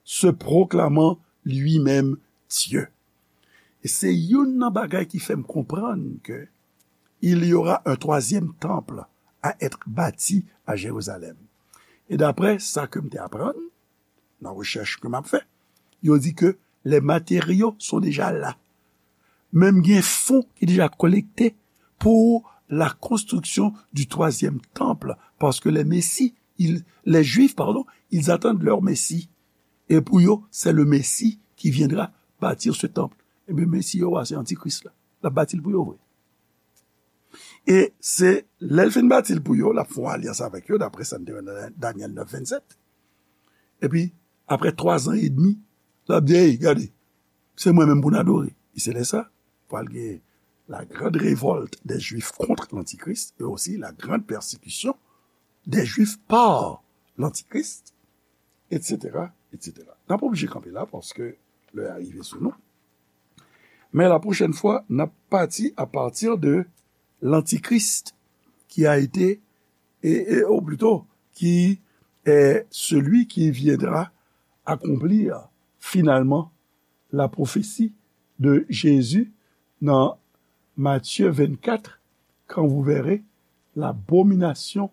se proclamant lui-même Dieu. E se youn nan bagay ki fè m konprann ke il y aura un troisième temple à être bâti à Jérusalem. E daprè sa ke m te aprann nan rechèch ke m ap fè, yo di ke les matériaux sont déjà là. Menm gen fon ki deja kolekte pour la construction du troisième temple, parce que les Messie, ils, les Juifs, pardon, ils attendent leur Messie. Et pour eux, c'est le Messie qui viendra bâtir ce temple. Ebyen, Messie yo a, se Antikris la. L ap bati l pou yo vre. E se lè l fin bati l pou yo, l ap fè yon alyans avèk yo, daprè sa n te wè nan Danyèl nèf vennsèt. Epi, aprè twa zan edmi, l ap di, hey, gade, se mwen menm pou n adore. E se lè sa, pral gen la grande révolte des Juifs contre l'Antichrist et aussi la grande persécution des Juifs par l'Antichrist, et cetera, et cetera. N ap oblije kanpe la paske lè a rive sou nou. Men la pwochèn fwa, n ap pati à partir de l'Antichrist qui a été, et, et, ou plutôt, qui est celui qui viendra accomplir finalement la prophétie de Jésus dans Matthieu vingt-quatre, quand vous verrez l'abomination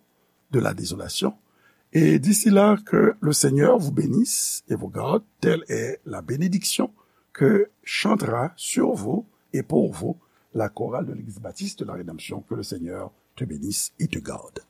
de la désolation. Et d'ici là, que le Seigneur vous bénisse et vous garde. Telle est la bénédiction que chantera sur vous et pour vous la chorale de l'Église baptiste de la Rédemption. Que le Seigneur te bénisse et te garde.